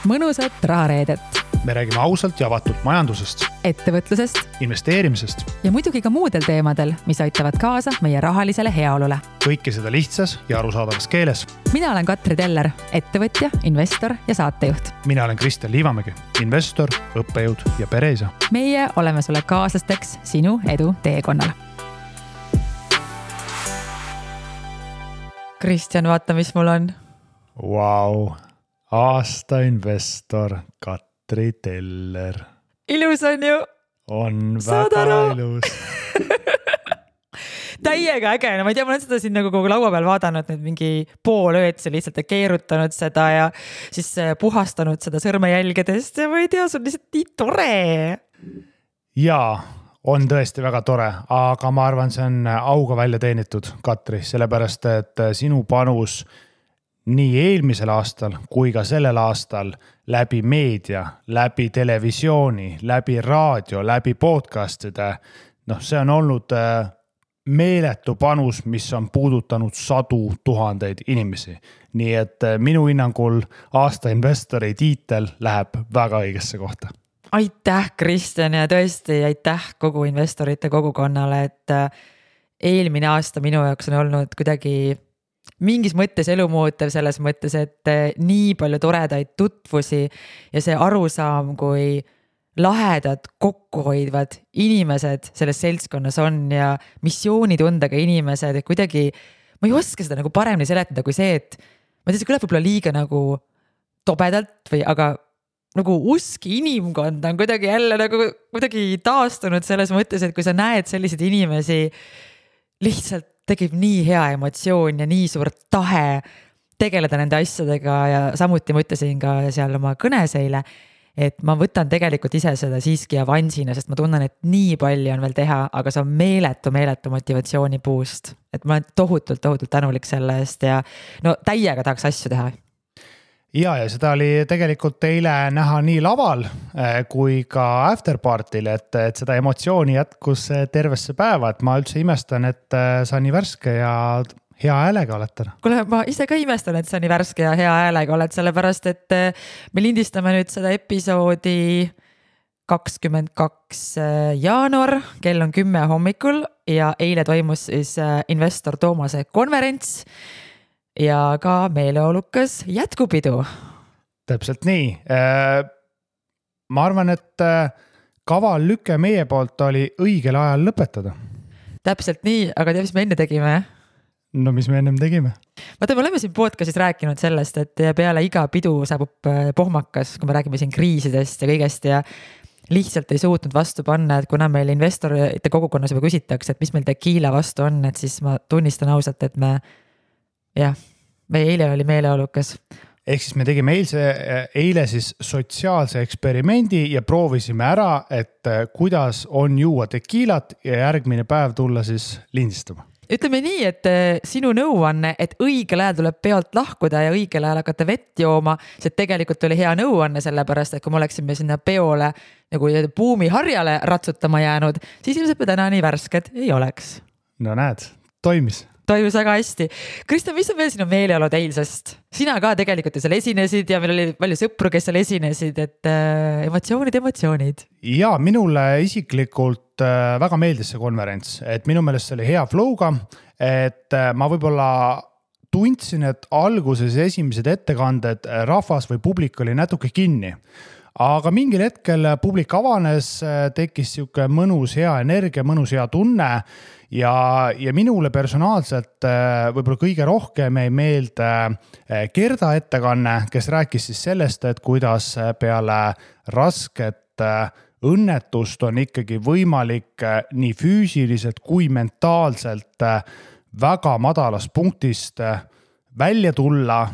mõnusat rahareedet. Me räägime ausalt ja avatult majandusest, ettevõtlusest investeerimisest ja muidugi ka muudel teemadel, mis aitavad kaasa meie rahalisele heaolule. kõike seda lihtsas ja arusaadavas keeles. Mina olen Katri Teller, ettevõtja, investor ja saatejuht. Mina olen Kristjan Liivamägi, investor, õppejõud ja pereisa. Meie oleme sulle kaaslasteks sinu edu teekonnal. Kristjan, vaata, mis mul on. Vau, aasta investor Katri Teller. Ilus on ju? On väga ilus. Täiega äge, no ma ei tea, ma olen seda siin nagu kogu laua peal vaadanud nüüd mingi pool ööd, see lihtsalt keerutanud seda ja siis puhastanud seda sõrmejälgedest ja ma ei tea, see on lihtsalt nii tore. Jaa, on tõesti väga tore, aga ma arvan, see on auga välja teenitud, Katri, sellepärast, et sinu panus nii eelmisel aastal kui ka sellel aastal läbi meedia, läbi televisiooni, läbi raadio, läbi podcastide, see on olnud meeletu panus, mis on puudutanud 100 000 inimesi. Nii et minu hinnangul aasta investori tiitel läheb väga õigesse kohta. Aitäh, Kristjan, ja tõesti aitäh kogu investorite kogukonnale, et eelmine aasta minu jaoks on olnud kuidagi mingis mõttes elumuutev selles mõttes, et nii palju toredaid tutvusi ja see arusaam, kui lahedad, kokkuhoidvad inimesed selles seltskonnas on ja missioonitundega inimesed ja kuidagi, ma ei oska seda nagu paremini seletada kui see, et ma tean, see kõlab võib-olla liiga nagu tobedalt või aga nagu usk inimkonda on kuidagi jälle nagu kuidagi taastunud selles mõttes, et kui sa näed selliseid inimesi, lihtsalt tegib nii hea emotsioon ja nii suur tahe tegeleda nende asjadega ja samuti ma ütlesin ka seal oma kõnes eile, et ma võtan tegelikult ise seda siiski avansina, sest ma tunnen, et nii palju on veel teha, aga see on meeletu motivatsiooni puust. Et ma olen tohutult tänulik selle eest ja täiega tahaks asju teha. Ja seda oli tegelikult teile näha nii laval kui ka afterpartil, et seda emotsiooni jätkus tervesse päeva, et ma üldse imestan, et sa nii värske ja hea häälega oled täna. Kuule, ma ise ka imestan, et sa nii värske ja hea häälega oled, sellepärast, et me lindistame nüüd seda episoodi 22. jaanuar, kell on 10 hommikul ja eile toimus siis investor Toomase konverents ja ka meeleolukas jätkupidu. Täpselt nii. Ma arvan, et kaval lüke meie poolt oli õigel ajal lõpetada. Täpselt nii, aga tea, mis me enne tegime? No mis me ennem tegime? Vaata, me oleme siin podcastis rääkinud sellest, et peale iga pidu saabub pohmakas, kui me räägime siin kriisidest ja kõigest ja lihtsalt ei suutnud vastu panna, et kuna meil investorite kogukonnas juba küsitakse, et mis meil tekiila vastu on, et siis ma tunnistan ausalt, et me eile oli meeleolukas. Ehk siis me tegime eile siis sotsiaalse eksperimendi ja proovisime ära, et kuidas on juua tekiilat ja järgmine päev tulla siis lindistama. Ütleme nii, et sinu nõuanne, et õigel ajal tuleb pealt lahkuda ja õigel ajal hakata vett jooma, see tegelikult oli hea nõuanne sellepärast, et kui me oleksime sinna peole nagu buumiharjale ratsutama jäänud, siis ilmselt me täna nii värsked ei oleks. No näed, toimis väga hästi. Kristjan, mis on veel sinu meeleolud eilsest? Sina ka tegelikult ju seal esinesid ja meil oli palju sõpru, kes seal esinesid, et emotsioonid. Ja minule isiklikult väga meeldis see konverents, et minu meelest see oli hea flow'ga, et ma võib-olla tundsin, et alguses esimesed ettekanded rahvas või publik oli natuke kinni. Aga mingil hetkel publik avanes, tekkis siuke mõnus hea energia, mõnus hea tunne ja minule personaalselt võib-olla kõige rohkem ei meelde Gerda ettekanne, kes rääkis siis sellest, et kuidas peale rasket õnnetust on ikkagi võimalik nii füüsiliselt kui mentaalselt väga madalast punktist välja tulla,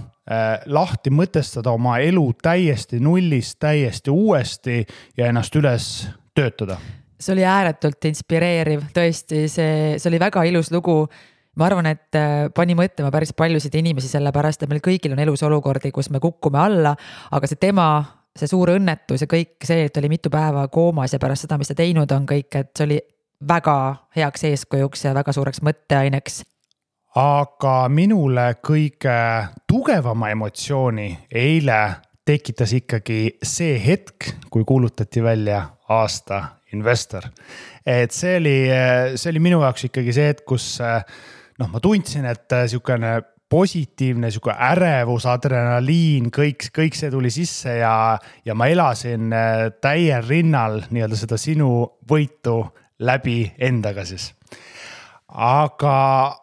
lahti mõtestada oma elu täiesti nullist, täiesti uuesti ja ennast üles töötada. See oli ääretult inspireeriv, tõesti, see oli väga ilus lugu. Ma arvan, et pani mõtlema päris paljusid inimesi sellepärast, et meil kõigil on elus olukordi, kus me kukkume alla, aga see suur õnnetus ja kõik see, et oli mitu päeva koomas ja pärast seda, mis ta teinud on kõik, et see oli väga heaks eeskujuks ja väga suureks mõtteaineks. Aga minule kõige tugevama emotsiooni eile tekitas ikkagi see hetk, kui kuulutati välja aasta investor. Et see oli minu jaoks ikkagi see hetk, kus ma tundsin, et siukene positiivne, siuke ärevus, adrenaliin, kõik see tuli sisse ja ma elasin täiel rinnal nii-öelda seda sinu võitu läbi endaga siis. Aga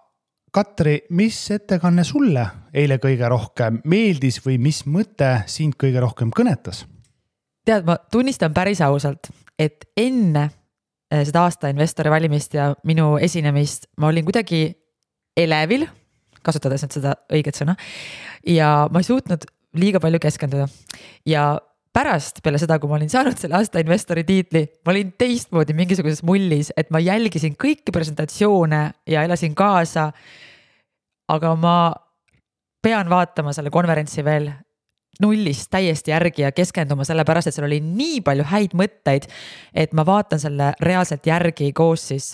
Katri, mis ettekanne sulle eile kõige rohkem meeldis või mis mõte sind kõige rohkem kõnetas? Tead, ma tunnistan päris ausalt, et enne seda aasta investori valimist ja minu esinemist ma olin kuidagi elevil, kasutades nüüd seda õiget sõna, ja ma ei suutnud liiga palju keskenduda. Ja pärast peale seda, kui ma olin saanud selle aasta investori tiitli, ma olin teistmoodi mingisuguses mullis, et ma jälgisin kõiki presentatsioone ja elasin kaasa. Aga ma pean vaatama selle konverentsi veel nullist täiesti järgi ja keskenduma selle pärast, et seal oli nii palju häid mõtteid, et ma vaatan selle reaalselt järgi koos siis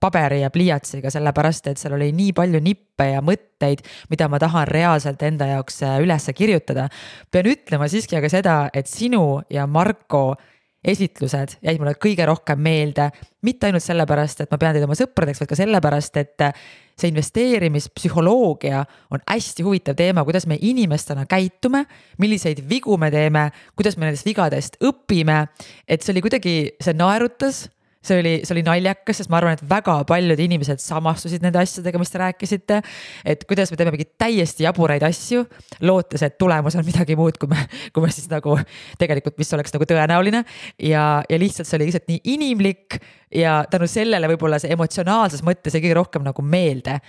paberi ja pliiatsiga, selle pärast, et seal oli nii palju nippe ja mõtteid, mida ma tahan reaalselt enda jaoks üles kirjutada. Pean ütlema siiski aga seda, et sinu ja Marko esitlused jäid mulle kõige rohkem meelde, mitte ainult sellepärast, et ma pean teid oma sõpradeks, vaid ka sellepärast, et see investeerimispsühholoogia on hästi huvitav teema, kuidas me inimestena käitume, milliseid vigu me teeme, kuidas me nendest vigadest õpime, et see oli kuidagi, see naerutas, see oli naljakas, sest ma arvan, et väga paljud inimesed samastusid nende asjadega, mis te rääkisite, et kuidas me teeme mingid täiesti jaburaid asju, lootes, et tulemus on midagi muud, kui me siis nagu tegelikult, mis oleks nagu tõenäoline ja lihtsalt see oli lihtsalt nii inimlik ja tänu sellele võib-olla see emotsionaalses mõttes ei kõige rohkem nagu meelde.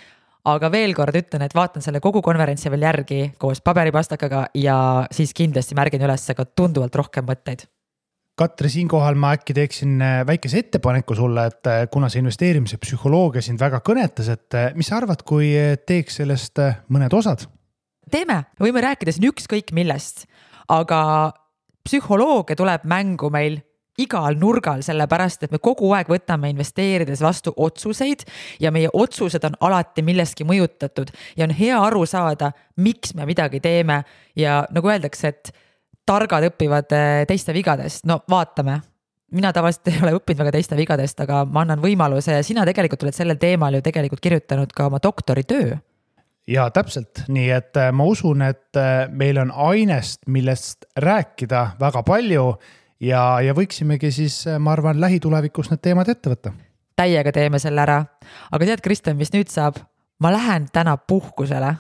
Aga veel kord ütlen, et vaatan selle kogu konverentsi veel järgi koos paberipastakaga ja siis kindlasti märgin üles ka tunduvalt rohkem mõtteid. Katri, siinkohal ma äkki teeksin väikese ettepaneku sulle, et kuna see investeerimise psühholoogia sind väga kõnetas, et mis sa arvad, kui teeks sellest mõned osad? Teeme, võime rääkida siin ükskõik millest, aga psühholoogia tuleb mängu meil igal nurgal, sellepärast, et me kogu aeg võtame investeerides vastu otsuseid ja meie otsused on alati milleski mõjutatud ja on hea aru saada, miks me midagi teeme ja nagu öeldakse, et targad õpivad teiste vigadest. No vaatame. Mina tavaliselt ei ole õppinud väga teiste vigadest, aga ma annan võimaluse ja sina tegelikult oled sellel teemal ju tegelikult kirjutanud ka oma doktoritöö. Ja täpselt, nii et ma usun, et meil on ainest, millest rääkida väga palju ja võiksimegi siis, ma arvan, lähitulevikus need teemad ette võtta. Täiega teeme selle ära. Aga tead, Kristjan, mis nüüd saab? Ma lähen täna puhkusele.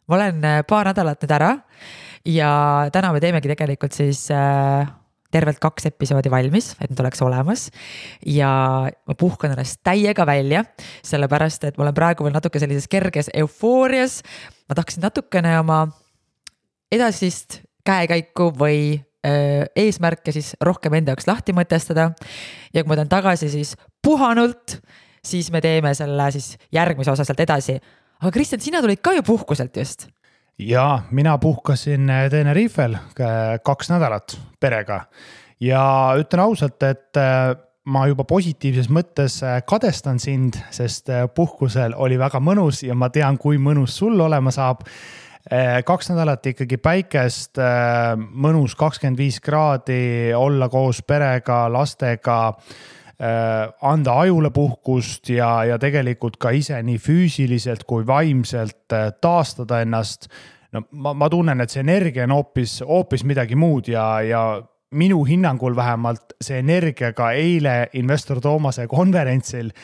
Ma olen paar nädalat nüüd ära ja täna me teemegi tegelikult siis tervelt 2 episoodi valmis, et need oleks olemas ja ma puhkan ennast täiega välja, sellepärast, et ma olen praegu veel natuke sellises kerges eufoorias. Ma tahaksin natukene oma edasist käekäiku või eesmärke siis rohkem enda jaoks lahti mõtestada ja kui ma tahan tagasi siis puhanult, siis me teeme selle siis järgmise osa sealt edasi. Aga Kristjan, sina tulid ka ju puhkuselt just? Ja mina puhkasin Tenerifel 2 nädalat perega ja ütlen ausalt, et ma juba positiivses mõttes kadestan sind, sest puhkusel oli väga mõnus ja ma tean, kui mõnus sul olema saab. 2 nädalat ikkagi päikest, mõnus 25 kraadi, olla koos perega, lastega, anda ajule puhkust ja tegelikult ka ise nii füüsiliselt kui vaimselt taastada ennast. No, ma tunnen, et see energia on hoopis midagi muud ja minu hinnangul vähemalt see energia ka eile investor Toomase konverentsil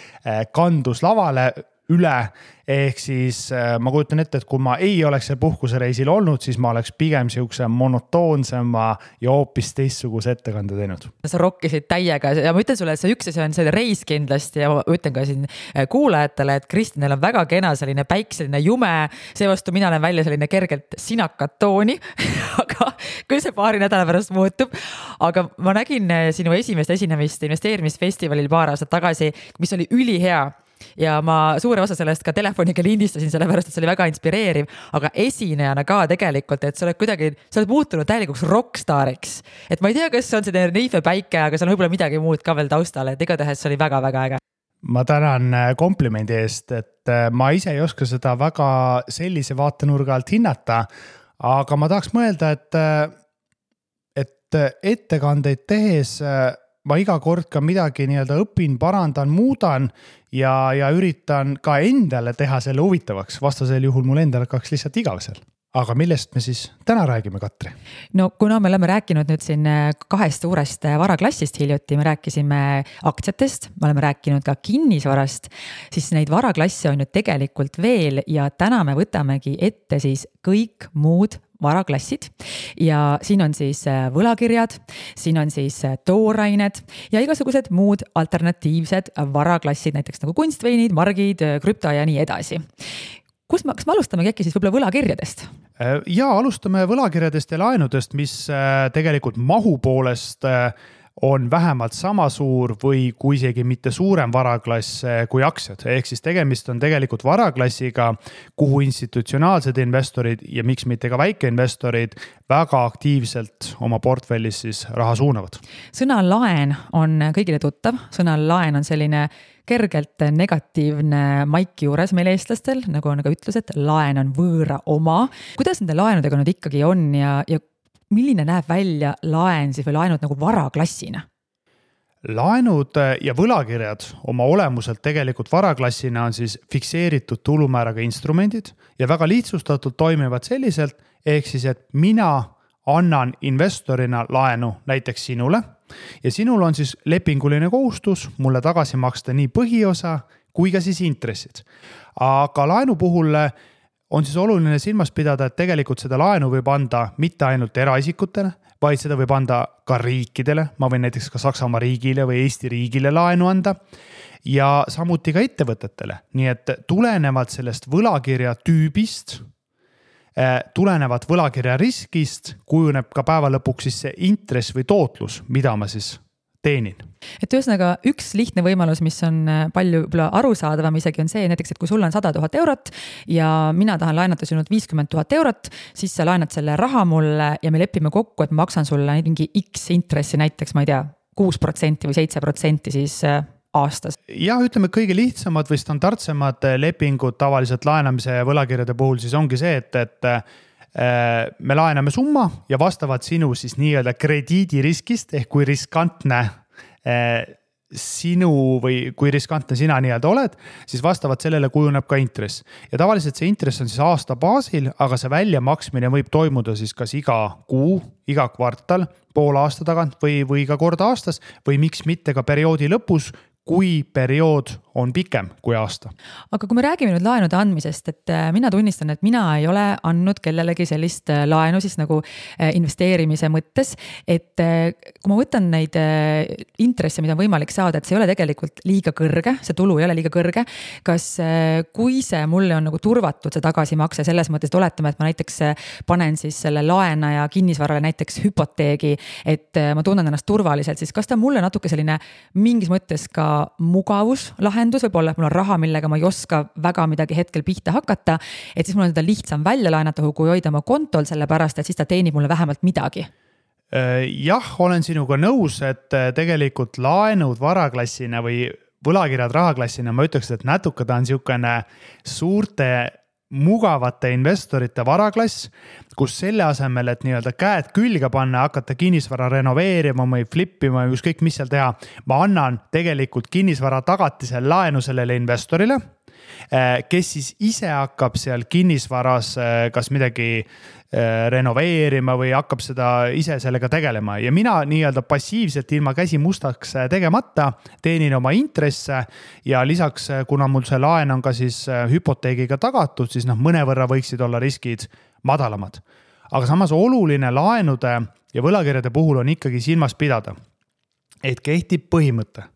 kandus lavale üle, ehk siis ma kujutan ette, et kui ma ei oleks see puhkusereisil olnud, siis ma oleks pigem siukse monotoonsema ja hoopis teistsuguse ettekande teinud. Sa rokkisid täiega ja ma ütlen sulle, et see üks asi on see reis kindlasti ja ma ütlen ka siin kuulajatele, et Kristjanil on väga kena selline päikseline jume, seevastu mina olen välja selline kergelt sinakat tooni, aga kui see paari nädala pärast muutub, aga ma nägin sinu esimest esinemist investeerimisfestivalil paar aastat tagasi, mis oli ülihea. Ja ma suure osa sellest ka telefoniga lindistasin, sellepärast, et see oli väga inspireeriv, aga esinejana ka tegelikult, et sa oled muutunud täielikuks rockstariks. Et ma ei tea, kas see on see Tenerife päike, aga see on võib-olla midagi muud ka veel taustale, et igatahes see oli väga-väga äge. Ma tänan komplimendi eest, et ma ise ei oska seda väga sellise vaatenurga alt hinnata, aga ma tahaks mõelda, et et ettekandeid tehes ma iga kord ka midagi nii-öelda õpin, parandan, muudan ja üritan ka endale teha selle huvitavaks. Vastasel juhul mul endal hakkaks lihtsalt igav seal. Aga millest me siis täna räägime, Katri? No kuna me oleme rääkinud nüüd siin 2 suurest varaklassist hiljuti, me rääkisime aktsiatest, me oleme rääkinud ka kinnisvarast, siis neid varaklasse on ju tegelikult veel ja täna me võtamegi ette siis kõik muud varaklassid ja siin on siis võlakirjad, siin on siis toorained ja igasugused muud alternatiivsed varaklassid, näiteks nagu kunstveinid, margid, krüpto ja nii edasi. Kas me alustamegi äkki siis võib-olla võlakirjadest? Ja alustame võlakirjadest ja laenudest, mis tegelikult mahu poolest on vähemalt sama suur või kui isegi mitte suurem varaklass kui aktsiad. Ehk siis tegemist on tegelikult varaklassiga, kuhu institutsionaalsed investorid ja miks mitte ka väikeinvestorid väga aktiivselt oma portfellis siis raha suunavad. Sõna laen on kõigile tuttav. Sõna laen on selline kergelt negatiivne maik juures meil eestlastel, nagu on ka ütlus, et laen on võõra oma. Kuidas nende laenudega nüüd ikkagi on ja milline näeb välja laen siis või laenud nagu varaklassina? Laenud ja võlakirjad oma olemuselt tegelikult varaklassina on siis fikseeritud tulumääraga instrumendid ja väga lihtsustatult toimivad selliselt, ehk siis, et mina annan investorina laenu näiteks sinule ja sinul on siis lepinguline kohustus mulle tagasi maksta nii põhiosa kui ka siis intressid. Aga laenu puhul on siis oluline silmas pidada, et tegelikult seda laenu võib anda mitte ainult eraisikutele, vaid seda võib anda ka riikidele. Ma võin näiteks ka Saksamaa riigile või Eesti riigile laenu anda ja samuti ka ettevõtetele. Nii et tulenevalt sellest võlakirja tüübist, tulenevat võlakirja riskist, kujuneb ka päeva lõpuks siis see intress või tootlus, mida ma siis teenin. Et ühesõnaga üks lihtne võimalus, mis on palju arusaadavam isegi on see näiteks, et kui sul on 100 000 eurot ja mina tahan laenata sinult 50 000 eurot, siis sa laenad selle raha mulle ja me lepime kokku, et maksan sulle mingi X intressi, näiteks ma ei tea, 6% või 7% siis aastas. Ja ütleme kõige lihtsamad või standardsemad lepingud tavaliselt laenamise ja võlakirjade puhul siis ongi see, et me laename summa ja vastavalt sinu siis nii-öelda krediidiriskist ehk kui riskantne sinu või kui riskantne sina nii-öelda oled, siis vastavalt sellele kujuneb ka intress. Ja tavaliselt see intress on siis aasta baasil, aga see väljamaksmine võib toimuda siis kas iga kuu, iga kvartal, poole aasta tagant või ka kord aastas või miks mitte ka perioodi lõpus, kui periood on pikem kui aasta. Aga kui me räägime nüüd laenude andmisest, et mina tunnistan, et mina ei ole andnud kellelegi sellist laenu siis nagu investeerimise mõttes, et kui ma võtan neid intresse, mida on võimalik saada, et see ei ole tegelikult liiga kõrge, see tulu ei ole liiga kõrge, kas kui see mulle on nagu turvatud see tagasimakse selles mõttes, et oletame, et ma näiteks panen siis selle laenaja kinnisvarale näiteks hüpoteegi, et ma tunnen ennast turvaliselt, siis kas ta mulle natuke selline mingis mõttes ka mugavuslahendus, võib-olla, et mul on raha, millega ma ei oska väga midagi hetkel pihta hakata, et siis mul on seda lihtsam välja laenata, kui hoida oma kontol, sellepärast, et siis ta teenib mulle vähemalt midagi. Jah, olen sinuga nõus, et tegelikult laenud varaklassina või võlakirjad rahaklassina, ma ütleks, et natuke ta on niisugune suurte mugavate investorite varaklass, kus selle asemel, et nii-öelda käed külge panna, hakata kinnisvara renoveerima või flippima või ükskõik mis seal teha, ma annan tegelikult kinnisvara tagatisel laenu sellele investorile, kes siis ise hakkab seal kinnisvaras kas midagi renoveerima või hakkab seda ise sellega tegelema ja mina nii-öelda passiivselt ilma käsi mustaks tegemata teenin oma intresse ja lisaks, kuna mul see laen on ka siis hüpoteegiga tagatud, siis mõnevõrra võiksid olla riskid madalamad. Aga samas oluline laenude ja võlakirjade puhul on ikkagi silmas pidada, et kehtib põhimõte.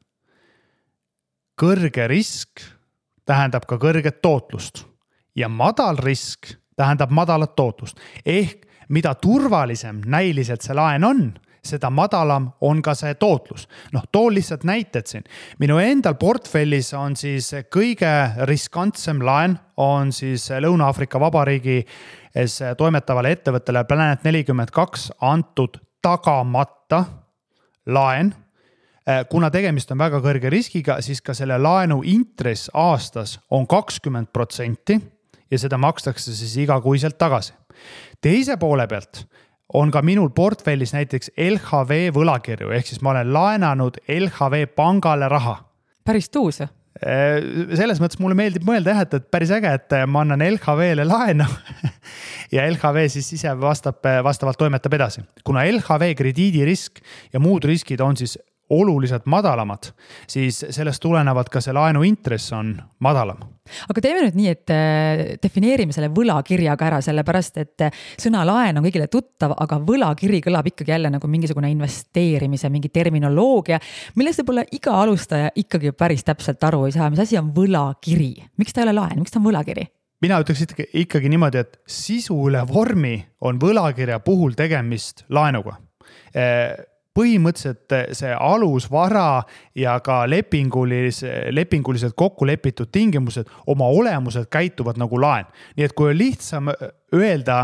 Kõrge risk tähendab ka kõrget tootlust ja madal risk tähendab madalat tootlust. Ehk mida turvalisem näiliselt see laen on, seda madalam on ka see tootlus. Toon lihtsalt näited siin. Minu endal portfellis on siis kõige riskantsem laen on siis Lõuna-Aafrika Vabariigi toimetavale ettevõttele Planet 42 antud tagamata laen. Kuna tegemist on väga kõrge riskiga, siis ka selle laenu intress aastas on 20% ja seda makstakse siis igakuiselt tagasi. Teise poole pealt on ka minul portfellis näiteks LHV võlakirju, ehk siis ma olen laenanud LHV pangale raha. Päris tuus. Selles mõttes mulle meeldib mõelda, et päris äge, et ma annan LHV-le laenu ja LHV siis ise vastavalt toimetab edasi. Kuna LHV krediidirisk ja muud riskid on siis oluliselt madalamad, siis sellest tulenevad ka see laenu intress on madalam. Aga teeme nüüd nii, et defineerime selle võlakirjaga ära, sellepärast, et sõna laen on kõigile tuttav, aga võlakiri kõlab ikkagi jälle nagu mingisugune investeerimise, mingi terminoloogia, millest võib-olla iga alustaja ikkagi päris täpselt aru ei saa, mis asi on võlakiri. Miks ta ei ole laen? Miks ta on võlakiri? Mina ütleks ikkagi niimoodi, et sisu üle vormi on võlakirja puhul tegemist laenuga. Põhimõtteliselt see alusvara ja ka lepinguliselt kokku lepitud tingimused oma olemuselt käituvad nagu laen. Nii et kui on lihtsam öelda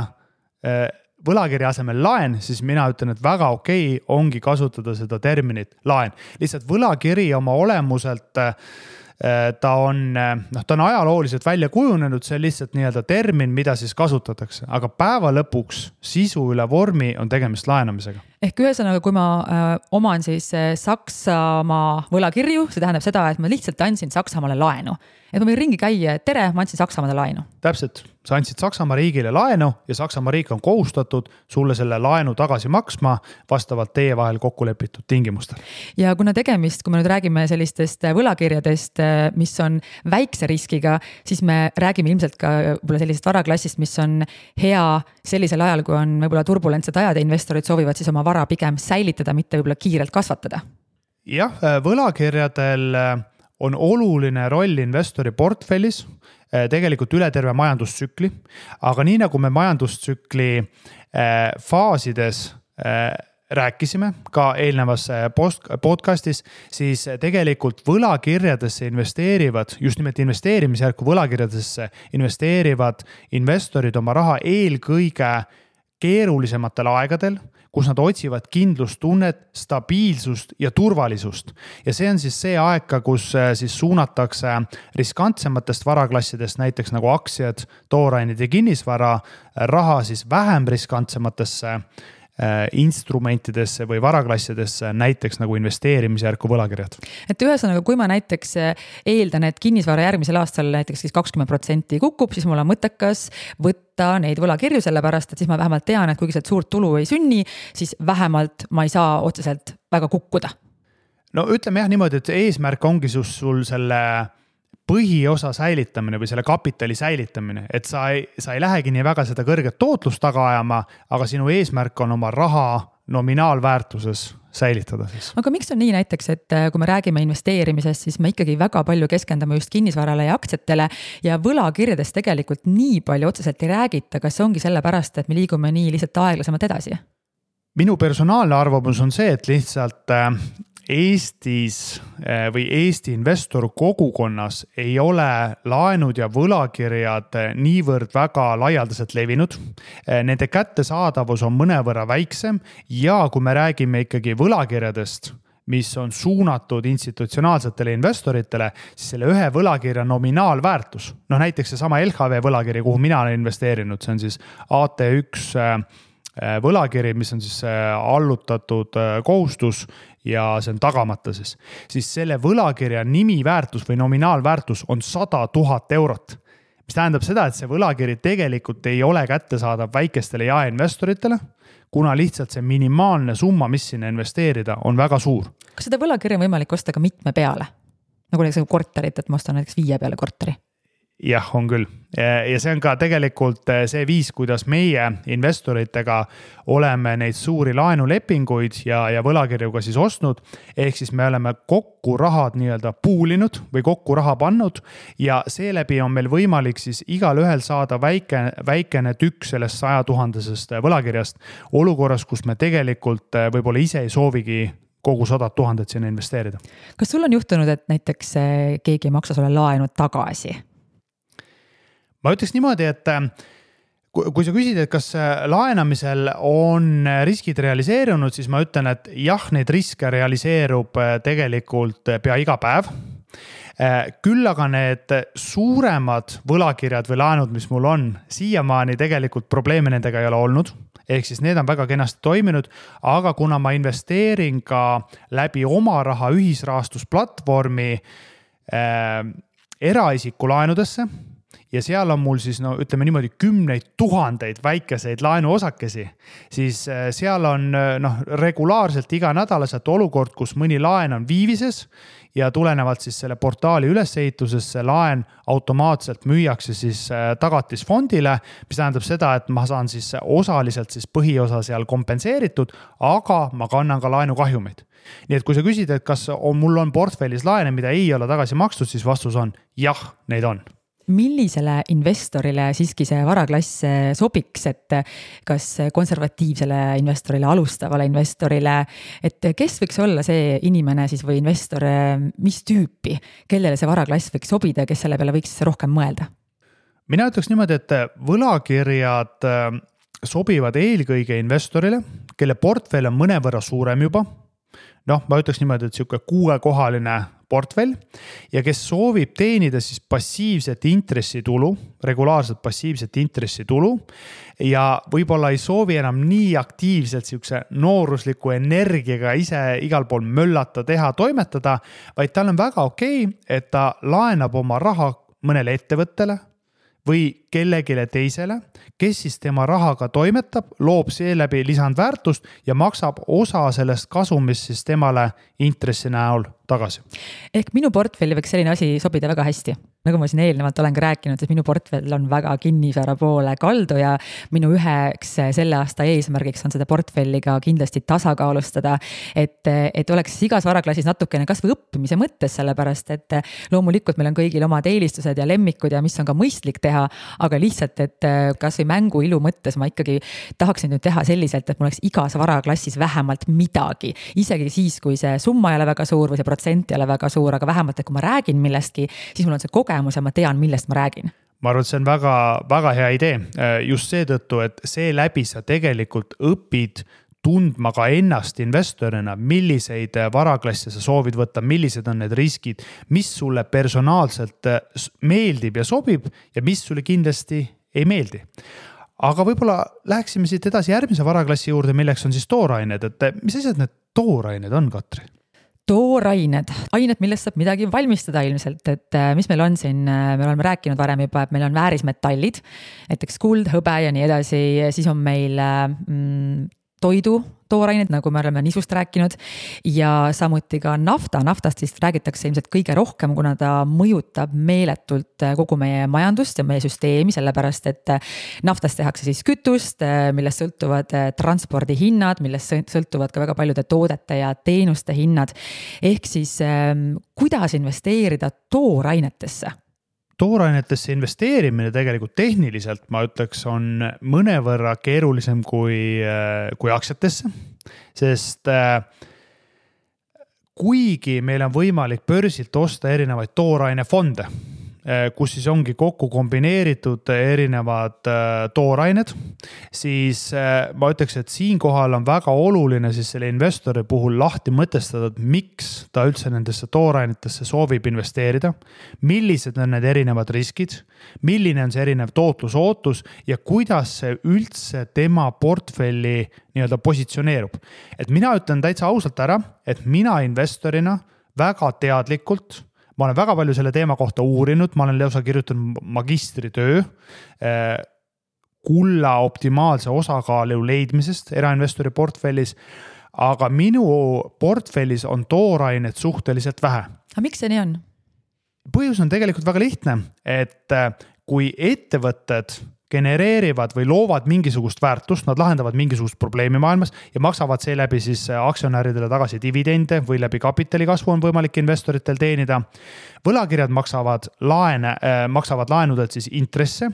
võlakirja asemel laen, siis mina ütlen, et väga okei ongi kasutada seda terminit laen. Lihtsalt võlakiri oma olemuselt ta on ajalooliselt välja kujunenud, see on lihtsalt nii-öelda termin, mida siis kasutatakse, aga päeva lõpuks sisu üle vormi on tegemist laenamisega. Ehk ühesõnaga, kui ma oman siis Saksamaa võlakirju, see tähendab seda, et ma lihtsalt andsin Saksamaale laenu. Et ma võin ringi käia, et tere, ma andsin Saksamaale laenu. Täpselt, sa andsid Saksamaa riigile laenu ja Saksamaa riik on kohustatud sulle selle laenu tagasi maksma vastavalt teie vahel kokku lepitud tingimustel. Ja kuna tegemist, kui me nüüd räägime sellistest võlakirjadest, mis on väikse riskiga, siis me räägime ilmselt ka võib-olla sellisest varaklassist, mis on hea sellisel ajal, kui on võib-olla turbulentsed ajad ja investorid soovivad siis oma vara pigem säilitada, mitte võib-olla kiirelt kasvatada. Jah, võlakirjadel on oluline roll investori portfellis tegelikult üle terve majandustsükli, aga nii nagu me majandustsükli faasides rääkisime ka eelnevas podcastis, siis tegelikult võlakirjadesse investeerivad, just nimelt investeerimisjärku võlakirjadesse investeerivad investorid oma raha eelkõige keerulisematel aegadel, kus nad otsivad kindlustunnet, stabiilsust ja turvalisust. Ja see on siis see aeg, kus siis suunatakse riskantsematest varaklassidest, näiteks nagu aktsiad, toorained ja kinnisvara, raha siis vähem riskantsematesse instrumentidesse või varaklassidesse, näiteks nagu investeerimisjärku võlakirjad. Et ühesõnaga, kui ma näiteks eeldan, et kinnisvara järgmisel aastal näiteks 20% kukub, siis mul on mõttekas võtta neid võlakirju, sellepärast, et siis ma vähemalt tean, et kuigi sealt suurt tulu ei sünni, siis vähemalt ma ei saa otseselt väga kukkuda. No ütleme jah niimoodi, et eesmärk ongi sul selle põhiosa säilitamine või selle kapitali säilitamine, et sa ei lähegi nii väga seda kõrget tootlust taga ajama, aga sinu eesmärk on oma raha nominaalväärtuses säilitada siis. Aga miks on nii näiteks, et kui me räägime investeerimisest, siis me ikkagi väga palju keskendume just kinnisvarale ja aktsiatele ja võlakirjadest tegelikult nii palju otseselt ei räägita, kas ongi sellepärast, et me liigume nii lihtsalt aeglasemalt edasi? Minu personaalne arvamus on see, et lihtsalt Eestis või Eesti investor kogukonnas ei ole laenud ja võlakirjad niivõrd väga laialdaselt levinud. Nende kättesaadavus on mõnevõrra väiksem ja kui me räägime ikkagi võlakirjadest, mis on suunatud institutsionaalsetele investoritele, siis selle ühe võlakirja nominaalväärtus, näiteks see sama LHV võlakiri, kuhu mina olen investeerinud, see on siis AT1 võlakiri, mis on siis allutatud kohustus ja see on tagamata siis selle võlakirja nimiväärtus või nominaalväärtus on 100 000 eurot, mis tähendab seda, et see võlakiri tegelikult ei ole kättesaadav väikestele jaeinvestoritele, kuna lihtsalt see minimaalne summa, mis sinna investeerida, on väga suur. Kas seda võlakirja on võimalik osta ka mitme peale? Nagu näiteks korterit, et ma ostan näiteks 5 peale korteri? Jah, on küll. Ja see on ka tegelikult see viis, kuidas meie investoritega oleme neid suuri laenulepinguid ja võlakirjuga siis ostnud. Ehk siis me oleme kokku rahad nii-öelda puulinud või kokku raha pannud ja seeläbi on meil võimalik siis igal ühel saada väikene tükk sellest 100 000 võlakirjast olukorras, kus me tegelikult võib-olla ise ei soovigi kogu 100 000 sinna investeerida. Kas sul on juhtunud, et näiteks keegi ei maksa sulle laenu tagasi? Ma ütleks niimoodi, et kui sa küsid, et kas laenamisel on riskid realiseerunud, siis ma ütlen, et jah, neid riske realiseerub tegelikult pea iga päev. Küll aga need suuremad võlakirjad või laenud, mis mul on, siiamaani tegelikult probleeme nendega ei ole olnud. ehk siis need on väga kenasti toiminud, aga kuna ma investeerin ka läbi oma raha ühisrahastusplatvormi eraisiku laenudesse ja seal on mul siis ütleme niimoodi 10 000 väikeseid laenuosakesi, siis seal on regulaarselt iganädalaselt olukord, kus mõni laen on viivises ja tulenevalt siis selle portaali ülesehitusest see laen automaatselt müüakse siis tagatisfondile, mis tähendab seda, et ma saan siis osaliselt siis põhiosa seal kompenseeritud, aga ma kannan ka laenukahjumeid. Nii et kui sa küsid, et kas mul on portfellis laene, mida ei ole tagasi makstud, siis vastus on jah, neid on. Millisele investorile siiski see varaklass sobiks, et kas konservatiivsele investorile, alustavale investorile, et kes võiks olla see inimene siis või investor, mis tüüpi, kellele see varaklass võiks sobida, kes selle peale võiks rohkem mõelda? Mina ütleks niimoodi, et võlakirjad sobivad eelkõige investorile, kelle portfell on mõnevõrra suurem juba. Ma ütleks niimoodi, et siuke 6-kohaline portfell ja kes soovib teenida siis passiivset intressitulu, regulaarselt passiivset intressitulu ja võib-olla ei soovi enam nii aktiivselt siukse noorusliku energiaga ise igal pool möllata, teha, toimetada, vaid tal on väga okei, et ta laenab oma raha mõnele ettevõttele või kellegile teisele, kes siis tema rahaga toimetab, loob seeläbi lisandväärtust ja maksab osa sellest kasumist siis temale intressi näol tagasi. Ehk minu portfelli võiks selline asi sobida väga hästi. Nagu ma siin eelnevalt olen ka rääkinud, et minu portfell on väga kinnisvara poole kaldu ja minu üheks selle aasta eesmärgiks on seda portfelli ka kindlasti tasakaalustada, et oleks igas varaklassis natukene kas või õppimise mõttes, sellepärast et loomulikult meil on kõigil omad eelistused ja lemmikud ja mis on ka mõistlik teha, aga lihtsalt, et kas või mängu ilu mõttes ma ikkagi tahaksin nüüd teha selliselt, et mul oleks igas varaklassis vähemalt midagi, isegi siis, kui see summa ei ole väga suur või see protsent ei ole väga suur, aga vähemalt, et kui ma räägin millestki, siis mul on see kogemus ja ma tean, millest ma räägin. Ma arvan, et see on väga, väga hea idee just seetõttu, et seeläbi sa tegelikult õpid tundma ka ennast investorina, milliseid varaklasse sa soovid võtta, millised on need riskid, mis sulle personaalselt meeldib ja sobib ja mis sulle kindlasti ei meeldi. Aga võib-olla läheksime siit edasi järgmise varaklassi juurde, milleks on siis toorained, et mis asjad need toorained on, Katri? Toorained, ained, millest saab midagi valmistada ilmselt, et mis meil on siin, me oleme rääkinud varem juba, et meil on väärismetallid, näiteks kuld, hõbe ja nii edasi, siis on meil toidu toorained, nagu me oleme nisust rääkinud ja samuti ka nafta. Naftast siis räägitakse ilmselt kõige rohkem, kuna ta mõjutab meeletult kogu meie majandust ja meie süsteemi, sellepärast et naftast tehakse siis kütust, millest sõltuvad transpordihinnad, millest sõltuvad ka väga paljude toodete ja teenuste hinnad. Ehk siis kuidas investeerida toorainetesse? Toorainetesse investeerimine tegelikult tehniliselt, ma ütleks, on mõnevõrra keerulisem kui aktsiatesse, sest kuigi meil on võimalik börsilt osta erinevaid toorainefonde, kus siis ongi kokku kombineeritud erinevad toorained, siis ma ütleks, et siinkohal on väga oluline siis selle investori puhul lahti mõtestada, et miks ta üldse nendesse toorainetesse soovib investeerida, millised on need erinevad riskid, milline on see erinev tootlusootus ja kuidas see üldse tema portfelli nii-öelda positsioneerub. Et mina ütlen täitsa ausalt ära, et mina investorina väga teadlikult ma olen väga palju selle teema kohta uurinud, ma olen lausa kirjutanud magistritöö kulla optimaalse osakaalu leidmisest erainvestori portfellis, aga minu portfellis on toorained suhteliselt vähe. Aga miks see nii on? Põhjus on tegelikult väga lihtne, et kui ettevõtted genereerivad või loovad mingisugust väärtust, nad lahendavad mingisugust probleemi maailmas ja maksavad seeläbi siis aktsionäridele tagasi dividende või läbi kapitali kasvu on võimalik investoritel teenida. Võlakirjad maksavad laenudelt siis intresse,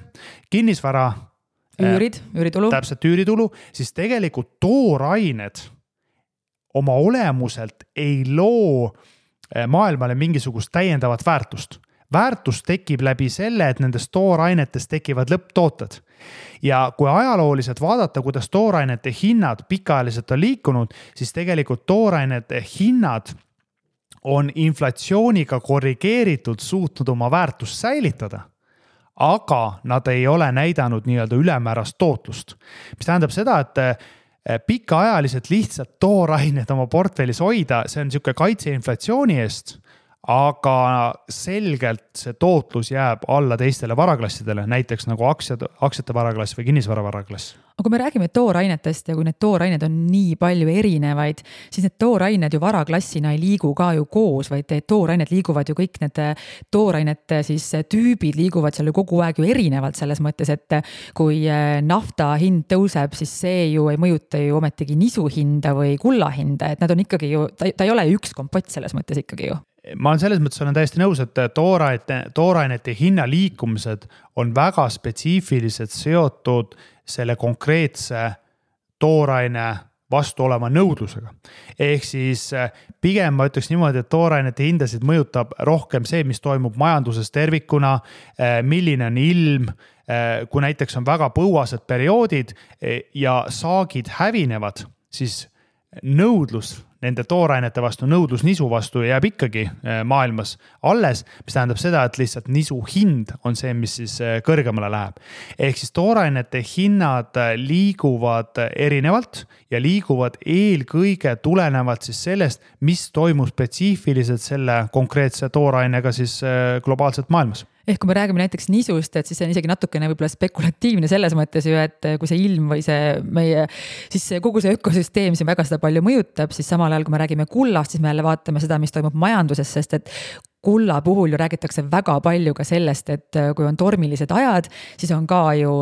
kinnisvara üüritulu. Täpselt üüritulu, siis tegelikult toorained oma olemuselt ei loo maailmale mingisugust täiendavat väärtust. Väärtus tekib läbi selle, et nendest toorainetest tekivad lõpptooted. Ja kui ajalooliselt vaadata, kuidas toorainete hinnad pikaajaliselt on liikunud, siis tegelikult toorainete hinnad on inflatsiooniga korrigeeritud suutnud oma väärtust säilitada. aga nad ei ole näidanud nii-öelda ülemäärast tootlust. Mis tähendab seda, et pikaajaliselt lihtsalt toorained oma portfellis hoida, see on niisugune kaitse inflatsiooni eest, aga selgelt see tootlus jääb alla teistele varaklassidele, näiteks nagu aktsiate varaklass või kinnisvara varaklass. Aga kui me räägime toorainetest ja kui need toorained on nii palju erinevaid, siis need toorained ju varaklassina ei liigu ka ju koos, vaid toorained liiguvad ju kõik need toorainete siis tüübid liiguvad seal ju kogu aeg ju erinevalt selles mõttes, et kui nafta hind tõuseb, siis see ju ei mõjuta ju ometigi nisu hinda või kulla hinda, et nad on ikkagi ju, ta ei ole üks kompott selles mõttes ikkagi ju. Ma olen selles mõttes olen täiesti nõus, et toorainete hinna liikumised on väga spetsiifilised seotud selle konkreetse tooraine vastu olema nõudlusega. Ehk siis pigem ma ütleks niimoodi, et toorainete hindasid mõjutab rohkem see, mis toimub majanduses tervikuna, milline on ilm, kui näiteks on väga põuased perioodid ja saagid hävinevad, siis nõudlus nende toorainete vastu, nõudlus nisu vastu jääb ikkagi maailmas alles, mis tähendab seda, et lihtsalt nisu hind on see, mis siis kõrgemale läheb. Ehk siis toorainete hinnad liiguvad erinevalt ja liiguvad eelkõige tulenevalt siis sellest, mis toimub spetsiifiliselt selle konkreetse toorainega siis globaalselt maailmas. Ehk kui me räägime näiteks nisust, et siis see on isegi natukene võib-olla spekulatiivne selles mõttes ju, et kui see ilm või see meie, siis kogu see ökosüsteem siin väga seda palju mõjutab, siis samal ajal, kui me räägime kullast, siis me jälle vaatame seda, mis toimub majanduses, sest et kulla puhul ju räägitakse väga palju ka sellest, et kui on tormilised ajad, siis on ka ju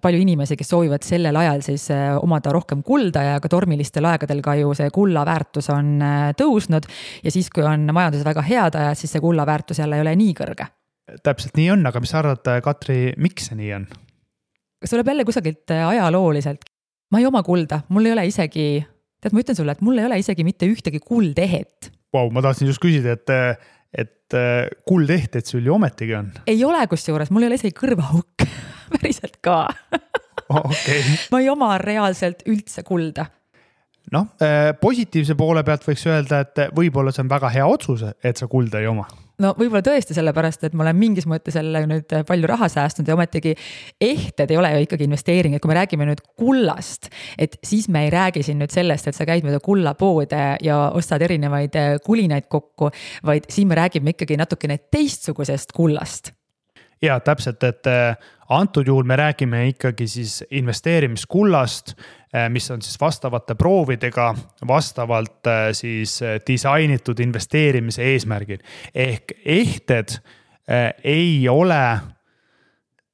palju inimesi, kes soovivad sellel ajal siis omada rohkem kulda ja ka tormilistel aegadel ka ju see kulla väärtus on tõusnud ja siis, kui on majanduses väga head ajad, siis see kulla väärtus jälle ei ole nii kõrge. Täpselt nii on, aga mis arvad, Katri, miks see nii on? Kas tuleb jälle kusagilt ajalooliselt? Ma ei oma kulda, mul ei ole isegi, tead, ma ütlen sulle, et mul ei ole isegi mitte ühtegi kuldehet. Wow, ma tahtsin just küsida, et kuldehteid sul ju ometigi on. Ei ole kusjuures, mul ei ole isegi kõrvahukk, päriselt ka. Okay. Ma ei oma reaalselt üldse kulda. Noh, positiivse poole pealt võiks öelda, et võib-olla see on väga hea otsus, et sa kulda ei oma. No võib-olla tõesti sellepärast, et ma olen mingis mõttes selle nüüd palju raha säästnud ja ometigi ehted ei ole ju ikkagi investeering, et kui me räägime nüüd kullast, et siis me ei räägi siin nüüd sellest, et sa käid mööda kullapoode ja ostad erinevaid kulinaid kokku, vaid siin me räägime ikkagi natukene teistsugusest kullast. Ja täpselt, et antud juhul me räägime ikkagi siis investeerimiskullast, mis on siis vastavate proovidega vastavalt siis disainitud investeerimise eesmärgil. Ehk ehted ei ole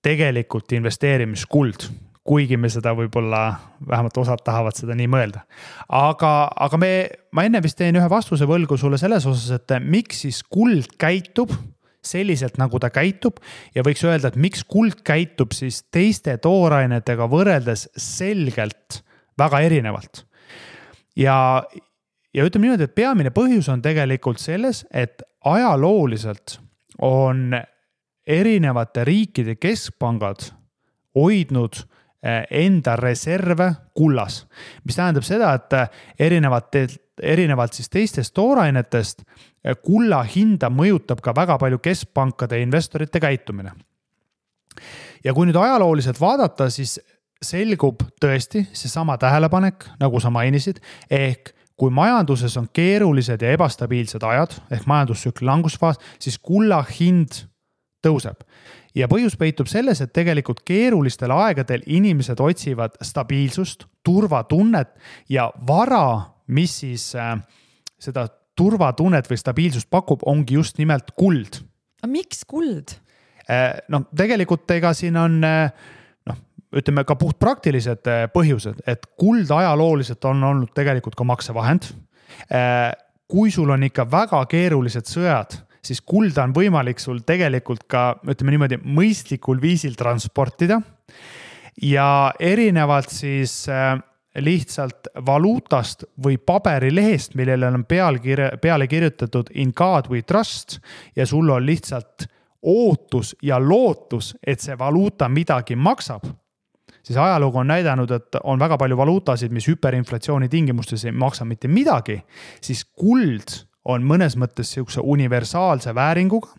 tegelikult investeerimiskuld, kuigi me seda võib-olla vähemalt osad tahavad seda nii mõelda. Aga ma enne vist teen ühe vastuse võlgu sulle selles osas, et miks siis kuld käitub selliselt, nagu ta käitub ja võiks öelda, et miks kuld käitub siis teiste toorainetega võrreldes selgelt väga erinevalt. Ja ütleme niimoodi, et peamine põhjus on tegelikult selles, et ajalooliselt on erinevate riikide keskpangad hoidnud enda reserve kullas, mis tähendab seda, et erinevalt siis teistest toorainetest kulla hinda mõjutab ka väga palju keskpankade ja investorite käitumine. Ja kui nüüd ajalooliselt vaadata, siis selgub tõesti see sama tähelepanek, nagu sa mainisid, ehk kui majanduses on keerulised ja ebastabiilsed ajad, ehk majandustsükli langusfaas, siis kulla hind tõuseb. Ja põhjus peitub selles, et tegelikult keerulistel aegadel inimesed otsivad stabiilsust, turvatunnet ja vara, mis siis seda turvatunnet või stabiilsust pakub, ongi just nimelt kuld. A miks kuld? No tegelikult ega siin on, ütleme ka puht praktilised põhjused, et kuld ajalooliselt on olnud tegelikult ka maksevahend. Kui sul on ikka väga keerulised sõjad, siis kulda on võimalik sul tegelikult ka, ütleme niimoodi, mõistlikul viisil transportida ja erinevalt siis lihtsalt valuutast või paberilehest, millele on peale kirjutatud in God we trust ja sul on lihtsalt ootus ja lootus, et see valuuta midagi maksab, siis ajalugu on näidanud, et on väga palju valuutasid, mis hüperinflatsiooni tingimustes ei maksa mitte midagi, siis kuld on mõnes mõttes siukse universaalse vääringuga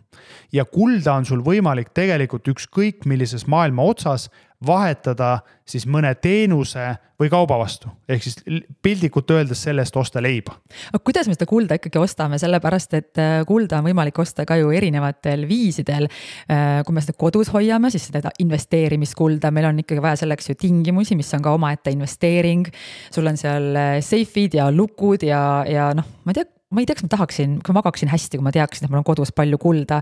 ja kulda on sul võimalik tegelikult ükskõik millises maailma otsas vahetada siis mõne teenuse või kauba vastu. Ehk siis pildikult öeldes sellest osta leiba. Aga kuidas me seda kulda ikkagi ostame? Sellepärast, et kulda on võimalik osta ka ju erinevatel viisidel. Kui me seda kodus hoiame, siis seda investeerimiskulda, meil on ikkagi vaja selleks ju tingimusi, mis on ka omaette investeering. Sul on seal seifid ja lukud ja noh, ma ei tea, kas ma tahaksin, kui ma magaksin hästi, kui ma teaksin, et mul on kodus palju kulda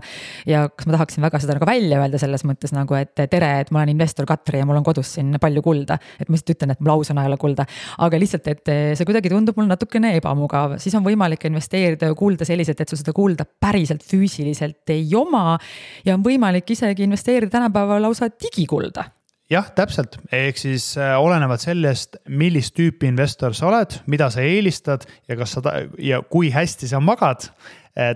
ja kas ma tahaksin väga seda nagu välja öelda selles mõttes nagu, et tere, et ma olen investor Katri ja mul on kodus siin palju kulda. Et ma lihtsalt ütlen, et mul ausõna ei ole kulda, aga lihtsalt, et see kuidagi tundub mul natukene ebamugav. Siis on võimalik investeerida kulda selliselt, et sul seda kulda päriselt füüsiliselt ei oma ja on võimalik isegi investeerida tänapäeva lausa digikulda. Jah, täpselt. Ehk siis olenevad sellest, millist tüüpi investor sa oled, mida sa eelistad ja kui hästi sa magad,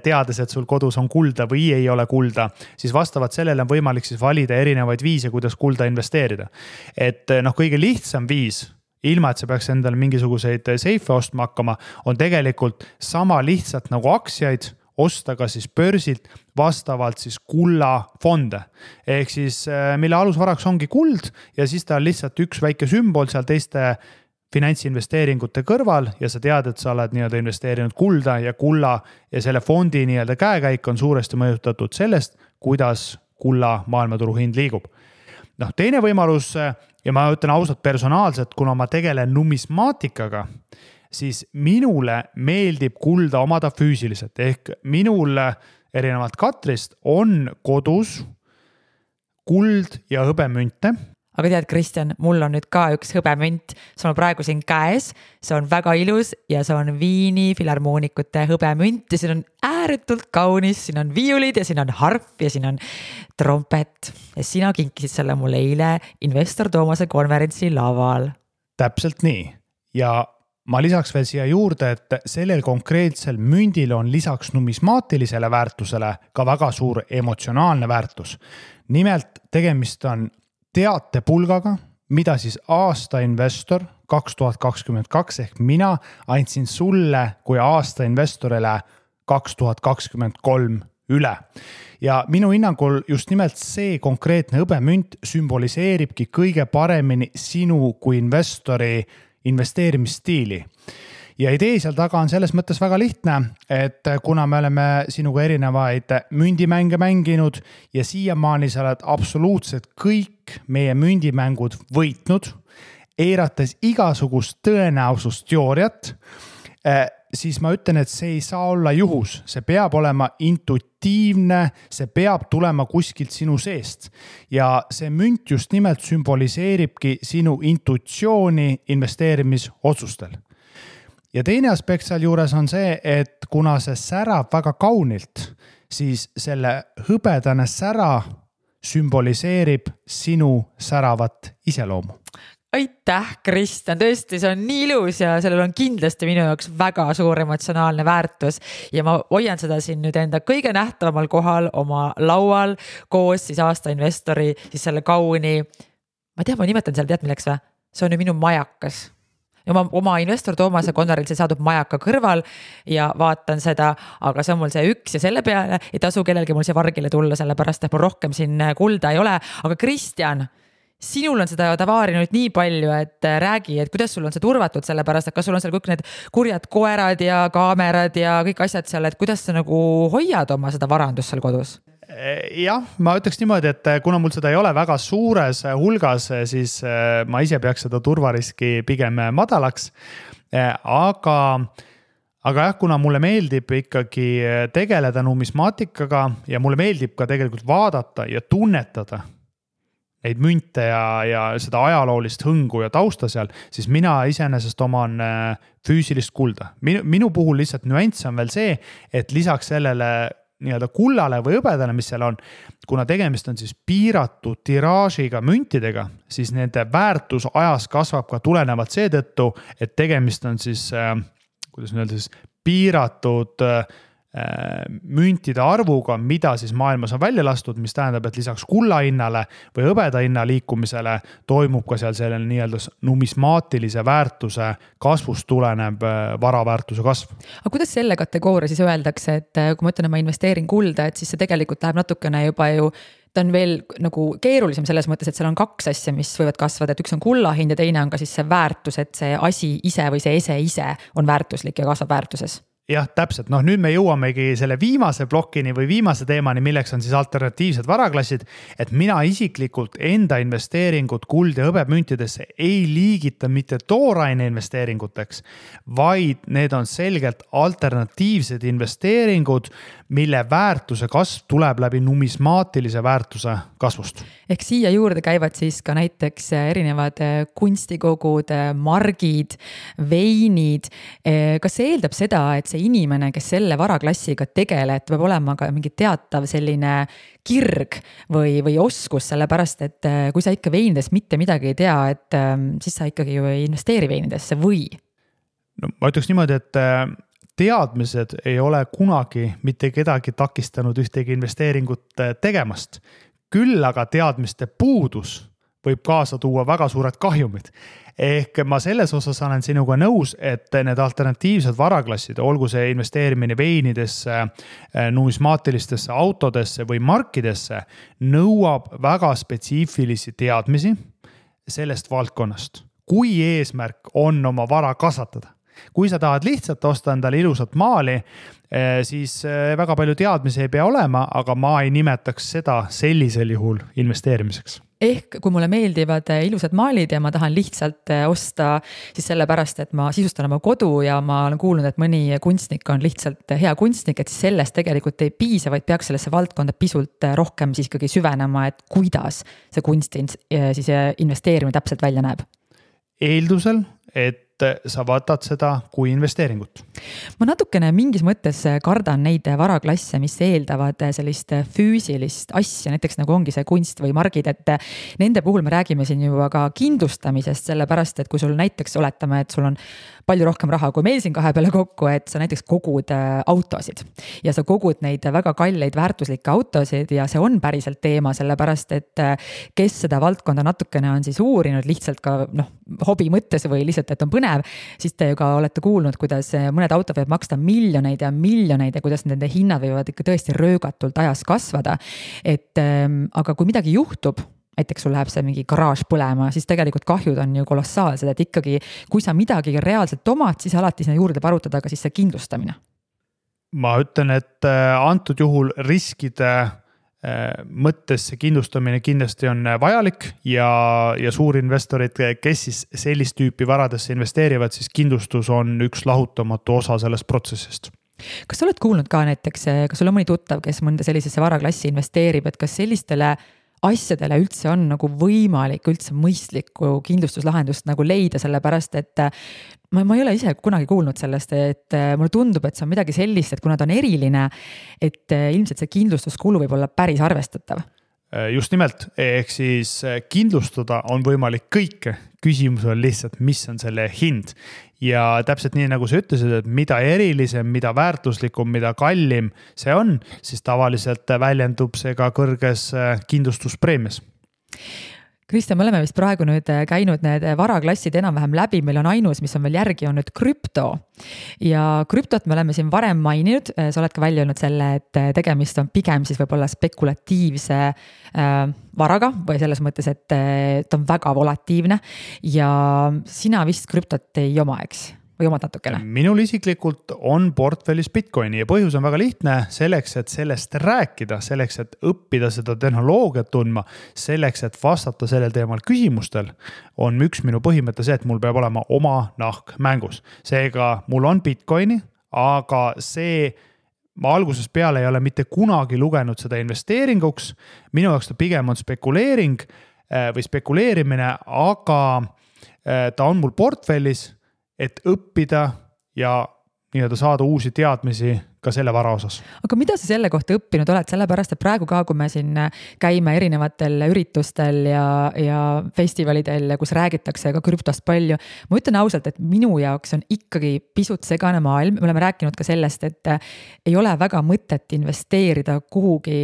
teades, et sul kodus on kulda või ei ole kulda, siis vastavalt sellele on võimalik siis valida erinevaid viise, kuidas kulda investeerida. Et kõige lihtsam viis, ilma et sa peaks endale mingisuguseid seife ostma hakkama, on tegelikult sama lihtsalt nagu aktsiaid osta ka siis börsilt vastavalt siis kullafonde. Ehk siis mille alusvaraks ongi kuld ja siis ta on lihtsalt üks väike sümbol seal teiste finantsinvesteeringute kõrval ja sa tead, et sa oled nii-öelda investeerinud kulda ja kulla ja selle fondi nii-öelda käekäik on suuresti mõjutatud sellest, kuidas kulla maailmaturu hind liigub. Teine võimalus ja ma ütlen ausalt personaalselt, kuna ma tegelen numismaatikaga, siis minule meeldib kulda omada füüsiliselt. Ehk minul erinevalt Katrist on kodus kuld ja hõbemünte. Aga tead, Kristjan, mul on nüüd ka üks hõbemünt, see on praegu siin käes, see on väga ilus ja see on Viini filharmoonikute hõbemünt ja siin on ääretult kaunis, siin on viiulid ja siin on harp ja siin on trompet ja sina kinkisid selle mulle eile Investor Toomase konverentsi laval. Täpselt nii ja ma lisaks veel siia juurde, et sellel konkreetsel mündil on lisaks numismaatilisele väärtusele ka väga suur emotsionaalne väärtus. Nimelt tegemist on teatepulgaga, mida siis aasta investor 2022 ehk mina andsin sulle kui aasta investorile 2023 üle. Ja minu hinnangul just nimelt see konkreetne hõbemünt sümboliseeribki kõige paremini sinu kui investori investeerimisstiili. Ja idee seal taga on selles mõttes väga lihtne, et kuna me oleme sinuga erinevaid mündimänge mänginud ja siiamaani sa oled absoluutselt kõik meie mündimängud võitnud, eirates igasugust tõenäosusteooriat, siis ma ütlen, et see ei saa olla juhus. See peab olema intuitiivne, see peab tulema kuskilt sinu seest. Ja see münt just nimelt sümboliseeribki sinu intuitsiooni investeerimisotsustel. Ja teine aspekt seal juures on see, et kuna see särab väga kaunilt, siis selle hõbedane sära sümboliseerib sinu säravat iseloomu. Aitäh, Kristjan, tõesti, see on nii ilus ja sellel on kindlasti minu jaoks väga suur emotsionaalne väärtus ja ma hoian seda siin nüüd enda kõige nähtavamal kohal oma laual koos siis aasta investori, siis selle kauni, ma nimetan seal, tead milleks või? See on ju minu majakas. Ja oma Investor Toomase konverentsil saadub majaka kõrval ja vaatan seda, aga see on mul see üks ja selle peale ei tasu kellelgi mul see vargile tulla, sellepärast et mul rohkem siin kulda ei ole, aga Kristjan, sinul on seda tavaari nüüd nii palju, et räägi, et kuidas sul on see turvatud sellepärast, et kas sul on seal kõik need kurjad koerad ja kaamerad ja kõik asjad seal, et kuidas sa nagu hoiad oma seda varandust seal kodus? Jah, ma ütleks niimoodi, et kuna mul seda ei ole väga suures hulgas, siis ma ise peaks seda turvariski pigem madalaks. Aga jah, kuna mulle meeldib ikkagi tegeleda numismaatikaga ja mulle meeldib ka tegelikult vaadata ja tunnetada neid münte ja seda ajaloolist hõngu ja tausta seal, siis mina iseenesest oman füüsilist kulda. Minu puhul lihtsalt nüanss on veel see, et lisaks sellele nii-öelda kullale või hõbedale, mis seal on, kuna tegemist on siis piiratud tiraažiga müntidega, siis nende väärtus ajas kasvab ka tulenevalt seetõttu, et tegemist on siis, kuidas öelda siis, piiratud müntide arvuga, mida siis maailmas on välja lastud, mis tähendab, et lisaks kulla hinnale või hõbeda hinna liikumisele toimub ka seal sellel nii-öelda numismaatilise väärtuse kasvust tuleneb varaväärtuse kasv. Aga kuidas selle kategooria siis öeldakse, et kui ma ütlen, et ma investeerin kulda, et siis see tegelikult läheb natukene juba ju ta on veel nagu keerulisem selles mõttes, et seal on kaks asja, mis võivad kasvada, et üks on kulla hind ja teine on ka siis see väärtus, et see asi ise või see ese ise on väärtuslik ja kasvab väärtuses. Jah, täpselt. Nüüd me jõuamegi selle viimase plokini või viimase teemani, milleks on siis alternatiivsed varaklassid, et mina isiklikult enda investeeringut kuld- ja hõbemüntidesse ei liigita mitte tooraine investeeringuteks, vaid need on selgelt alternatiivsed investeeringud, mille väärtuse kasv tuleb läbi numismaatilise väärtuse kasvust. Ehk siia juurde käivad siis ka näiteks erinevad kunstikogud, margid, veinid. Kas see eeldab seda, et see inimene, kes selle varaklassiga tegeleb, peab olema ka mingi teatav selline kirg või oskus, sellepärast et kui sa ikka veinidest mitte midagi ei tea, et siis sa ikkagi ju ei investeeri veinidesse või? No, ma ütleks niimoodi, et teadmised ei ole kunagi mitte kedagi takistanud ühtegi investeeringut tegemast. Küll aga teadmiste puudus võib kaasa tuua väga suured kahjumid. Ehk ma selles osas olen sinuga nõus, et need alternatiivsed varaklassid, olgu see investeerimine veinidesse, numismaatilistesse autodesse või markidesse, nõuab väga spetsiifilisi teadmisi sellest valdkonnast. Kui eesmärk on oma vara kasvatada. Kui sa tahad lihtsalt osta endale ilusat maali, siis väga palju teadmisi ei pea olema, aga ma ei nimetaks seda sellisel juhul investeerimiseks. Ehk kui mulle meeldivad ilusad maalid ja ma tahan lihtsalt osta siis sellepärast, et ma sisustan oma kodu ja ma olen kuulnud, et mõni kunstnik on lihtsalt hea kunstnik, et siis sellest tegelikult ei piisa, vaid peaks sellesse valdkonda pisut rohkem siis ikkagi süvenema, et kuidas see kunst siis investeerimine täpselt välja näeb. Eeldusel, et sa võtad seda kui investeeringut. Ma natukene mingis mõttes kardan neid varaklasse, mis eeldavad sellist füüsilist asja, näiteks nagu ongi see kunst või margid, et nende puhul me räägime siin juba ka kindlustamisest, sellepärast, et kui sul näiteks oletame, et sul on palju rohkem raha kui meil siin kahe peale kokku, et sa näiteks kogud autosid ja sa kogud neid väga kalleid väärtuslikke autosid ja see on päriselt teema, sellepärast, et kes seda valdkonda natukene on siis uurinud lihtsalt ka hobi mõttes või lihtsalt, et on põnev, siis te ju ka olete kuulnud, kuidas mõned autod võivad maksta miljoneid ja kuidas nende hinnad võivad ikka tõesti röögatult ajas kasvada. Aga kui midagi juhtub, näiteks sul läheb see mingi garaaž põlema, siis tegelikult kahjud on ju kolossaalsed, et ikkagi kui sa midagi reaalselt omad, siis alati sinna juurde parutada ka siis see kindlustamine. Ma ütlen, et antud juhul riskide mõttes see kindlustamine kindlasti on vajalik ja suurinvestorid, kes siis sellist tüüpi varadesse investeerivad, siis kindlustus on üks lahutamatu osa sellest protsessist. Kas sa oled kuulnud ka näiteks, kas sul on mõni tuttav, kes mõnda sellisesse varaklassi investeerib, et kas sellistele asjadele üldse on nagu võimalik üldse mõistlikku kindlustuslahendust nagu leida, sellepärast et ma ei ole ise kunagi kuulnud sellest, et mulle tundub, et see on midagi sellist, et kuna ta on eriline, et ilmselt see kindlustuskulu võib olla päris arvestatav. Just nimelt, ehk siis kindlustada on võimalik kõike, küsimus on lihtsalt, mis on selle hind. Ja täpselt nii, nagu sa ütlesid, et mida erilisem, mida väärtuslikum, mida kallim see on, siis tavaliselt väljendub see ka kõrges kindlustuspreemias. Kristjan, me oleme vist praegu nüüd käinud need varaklassid enam-vähem läbi, meil on ainus, mis on veel järgi, on nüüd krüpto. Ja krüptot me oleme siin varem maininud, sa oled ka välja öelnud selle, et tegemist on pigem siis võib-olla spekulatiivse varaga või selles mõttes, et ta on väga volatiivne ja sina vist krüptot ei oma, eks? Või omad natukene? Minul isiklikult on portfellis Bitcoini ja põhjus on väga lihtne, selleks, et sellest rääkida, selleks, et õppida seda tehnoloogiat tundma, selleks, et vastata sellel teemal küsimustel, on üks minu põhimõte see, et mul peab olema oma nahk mängus. Seega mul on Bitcoini, aga ma algusest peale ei ole mitte kunagi lugenud seda investeeringuks. Minu jaoks ta pigem on spekuleering või spekuleerimine, aga ta on mul portfellis, et õppida ja nii-öelda saada uusi teadmisi ka selle vara osas. Aga mida sa selle kohta õppinud oled, sellepärast et praegu ka, kui me siin käime erinevatel üritustel ja festivalidel, kus räägitakse ka krüptost palju, ma ütlen ausalt, et minu jaoks on ikkagi pisut segane maailm, me oleme rääkinud ka sellest, et ei ole väga mõtet investeerida kuhugi,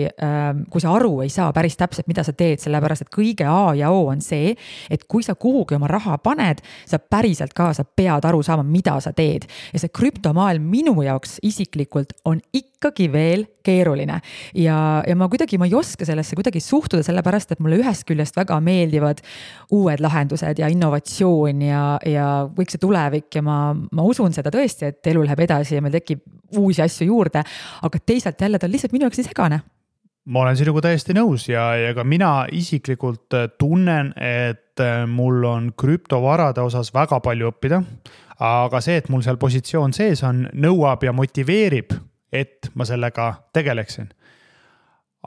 kui sa aru ei saa päris täpselt, mida sa teed, sellepärast et kõige A ja O on see, et kui sa kuhugi oma raha paned, sa päriselt ka, sa pead aru saama, mida sa teed. Ja see krüptomaailm minu jaoks isiklikult on ikkagi veel keeruline ja ma ei oska sellesse kuidagi suhtuda, sellepärast et mulle ühest küljest väga meeldivad uued lahendused ja innovatsioon ja kõik see tulevik ja ma usun seda tõesti, et elu läheb edasi ja meil tekib uusi asju juurde, aga teisalt jälle ta on lihtsalt minu jaoks nii segane. Ma olen sinuga täiesti nõus ja ka mina isiklikult tunnen, et mul on krüptovarade osas väga palju õppida, aga see, et mul seal positsioon sees on, nõuab ja motiveerib, et ma sellega tegeleksin.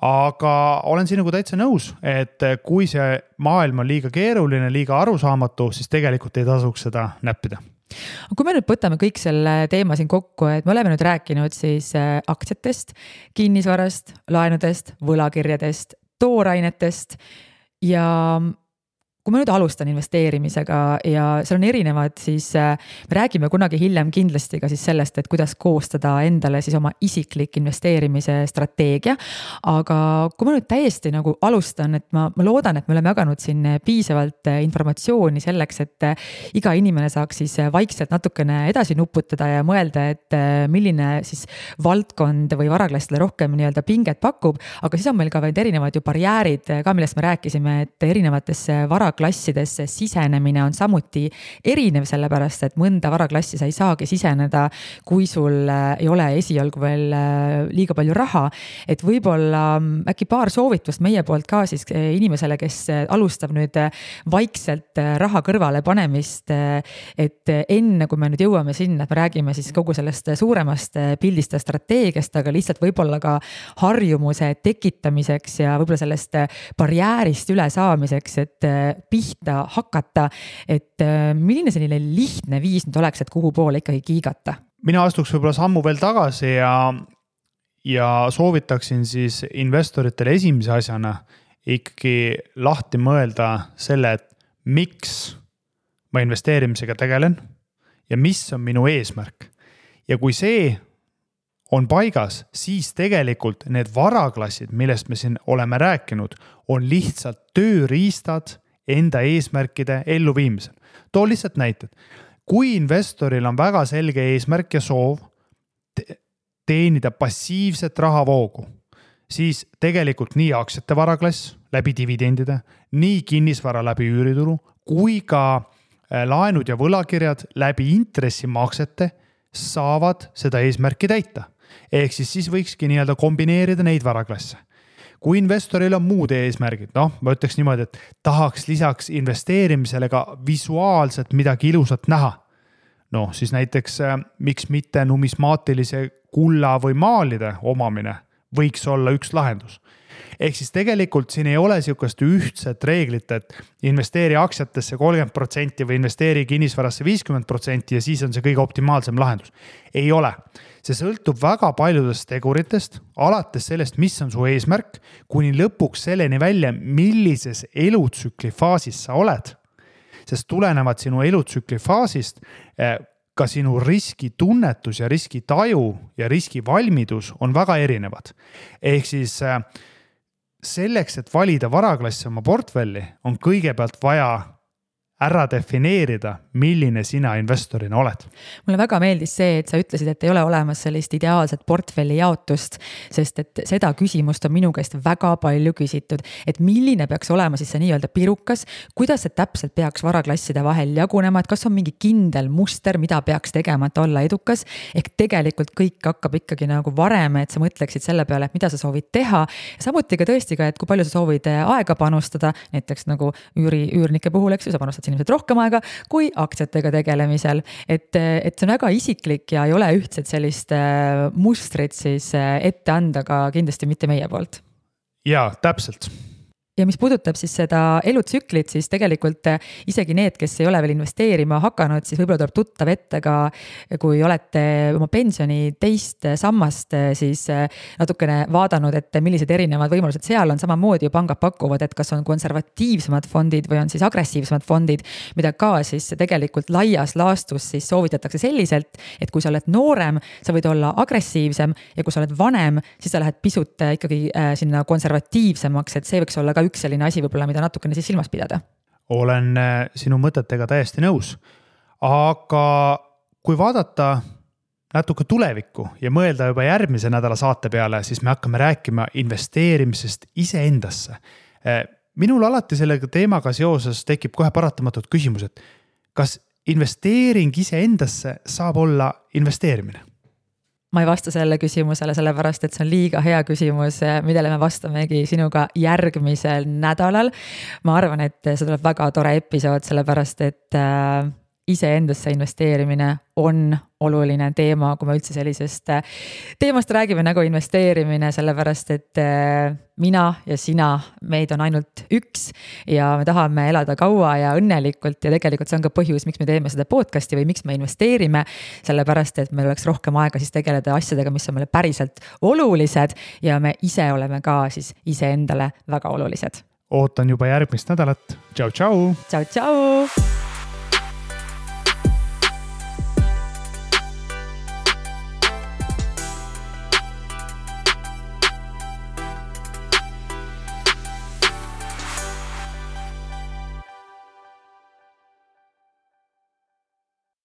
Aga olen sinuga täitsa nõus, et kui see maailm on liiga keeruline, liiga arusaamatu, siis tegelikult ei tasuks seda näppida. Kui me nüüd võtame kõik selle teema siin kokku, et me oleme nüüd rääkinud siis aktsiatest, kinnisvarast, laenudest, võlakirjadest, toorainetest ja kui ma nüüd alustan investeerimisega ja seal on erinevad, siis me räägime kunagi hiljem kindlasti ka siis sellest, et kuidas koostada endale siis oma isiklik investeerimise strateegia. Aga kui ma nüüd täiesti nagu alustan, et ma loodan, et me oleme jaganud siin piisavalt informatsiooni selleks, et iga inimene saaks siis vaikselt natukene edasi nuputada ja mõelda, et milline siis valdkond või varaklassile rohkem nii-öelda pinget pakub, aga siis on meil ka vaid erinevad ju barjäärid ka, millest me rääkisime, et erinevatesse varaklassidesse sisenemine on samuti erinev, sellepärast et mõnda varaklassi sa ei saagi siseneda, kui sul ei ole esialgu veel liiga palju raha, et võib-olla äkki paar soovitust meie poolt ka siis inimesele, kes alustab nüüd vaikselt raha kõrvale panemist, et enne kui me nüüd jõuame sinna, et me räägime siis kogu sellest suuremast pildist ja strateegiast, aga lihtsalt võib-olla ka harjumuse tekitamiseks ja võib-olla sellest barjäärist üle saamiseks, et pihta hakata, et milline selline lihtne viis nüüd oleks, et kuhu poole ikkagi kiigata? Mina astuks võib-olla sammu veel tagasi ja soovitaksin siis investoritele esimese asjana ikkagi lahti mõelda selle, et miks ma investeerimisega tegelen ja mis on minu eesmärk. Ja kui see on paigas, siis tegelikult need varaklassid, millest me siin oleme rääkinud, on lihtsalt tööriistad enda eesmärkide elluviimisel. Too lihtsalt näited. Kui investoril on väga selge eesmärk ja soov teenida passiivset rahavoogu, siis tegelikult nii aktsiate varaklass läbi dividendide, nii kinnisvara läbi üüritulu, kui ka laenud ja võlakirjad läbi intressimaksete saavad seda eesmärki täita. Ehk siis võikski nii-öelda kombineerida neid varaklasse. Kui investoril on muud eesmärgid, ma ütleks niimoodi, et tahaks lisaks investeerimisele ka visuaalselt midagi ilusat näha. Siis näiteks miks mitte numismaatilise kulla või maalide omamine võiks olla üks lahendus. Ehk siis tegelikult siin ei ole sihukest ühtset reeglit, et investeeri aktsiatesse 30% või investeeri kinnisvarasse 50% ja siis on see kõige optimaalsem lahendus. Ei ole. See sõltub väga paljudest teguritest, alates sellest, mis on su eesmärk, kuni lõpuks selleni välja, millises elutsükli faasis sa oled. Sest tulenevad sinu elutsükli faasist ka sinu riskitunnetus ja riskitaju ja riskivalmidus on väga erinevad. Ehk siis selleks, et valida varaklassi oma portfelli, on kõigepealt vaja ära defineerida, milline sina investorina oled. Mulle väga meeldis see, et sa ütlesid, et ei ole olemas sellist ideaalset portfelli jaotust, sest et seda küsimust on minu käest väga palju küsitud, et milline peaks olema siis see nii-öelda pirukas, kuidas see täpselt peaks varaklasside vahel jagunema, et kas on mingi kindel muster, mida peaks tegema, et olla edukas, ehk tegelikult kõik hakkab ikkagi nagu varem, et sa mõtleksid selle peale, et mida sa soovid teha, samuti ka tõesti ka, et kui palju sa soovid aega panustada, näiteks nagu üürnike puhul, eks ju, sa panustad inimesed rohkem aega kui aktsiatega tegelemisel, et see on väga isiklik ja ei ole ühtset sellist mustrit siis ette anda ka kindlasti mitte meie poolt. Jaa, täpselt. ja mis puudutab siis seda elutsüklit, siis tegelikult isegi need, kes ei ole veel investeerima hakanud, siis võib-olla tuleb tuttav ette ka, kui olete oma pensioni teist sammast siis natukene vaadanud, et millised erinevad võimalused seal on, samamoodi ju pangad pakuvad, et kas on konservatiivsemad fondid või on siis agressiivsemad fondid, mida ka siis tegelikult laias laastus siis soovitatakse selliselt, et kui sa oled noorem, sa võid olla agressiivsem ja kui sa oled vanem, siis sa lähed pisut ikkagi sinna konservatiivsemaks, et see võiks olla ka üks selline asi võib-olla, mida natukene siis silmas pidada. Olen sinu mõtetega täiesti nõus, aga kui vaadata natuke tulevikku ja mõelda juba järgmise nädala saate peale, siis me hakkame rääkima investeerimisest iseendasse. Minul alati sellega teemaga seoses tekib kohe paratamatult küsimus, et kas investeering iseendasse saab olla investeerimine? Ma ei vasta selle küsimusele, sellepärast, et see on liiga hea küsimus, millele me vastamegi sinuga järgmisel nädalal. Ma arvan, et see tuleb väga tore episood, sellepärast, et iseendasse investeerimine on oluline teema, kui me üldse sellisest teemast räägime nagu investeerimine, sellepärast, et mina ja sina, meid on ainult üks ja me tahame elada kaua ja õnnelikult ja tegelikult see on ka põhjus, miks me teeme seda podcasti või miks me investeerime, sellepärast, et meil oleks rohkem aega siis tegeleda asjadega, mis on meile päriselt olulised ja me ise oleme ka siis iseendale väga olulised. Ootan juba järgmist nädalat. Tšau, tšau! Tšau, tšau!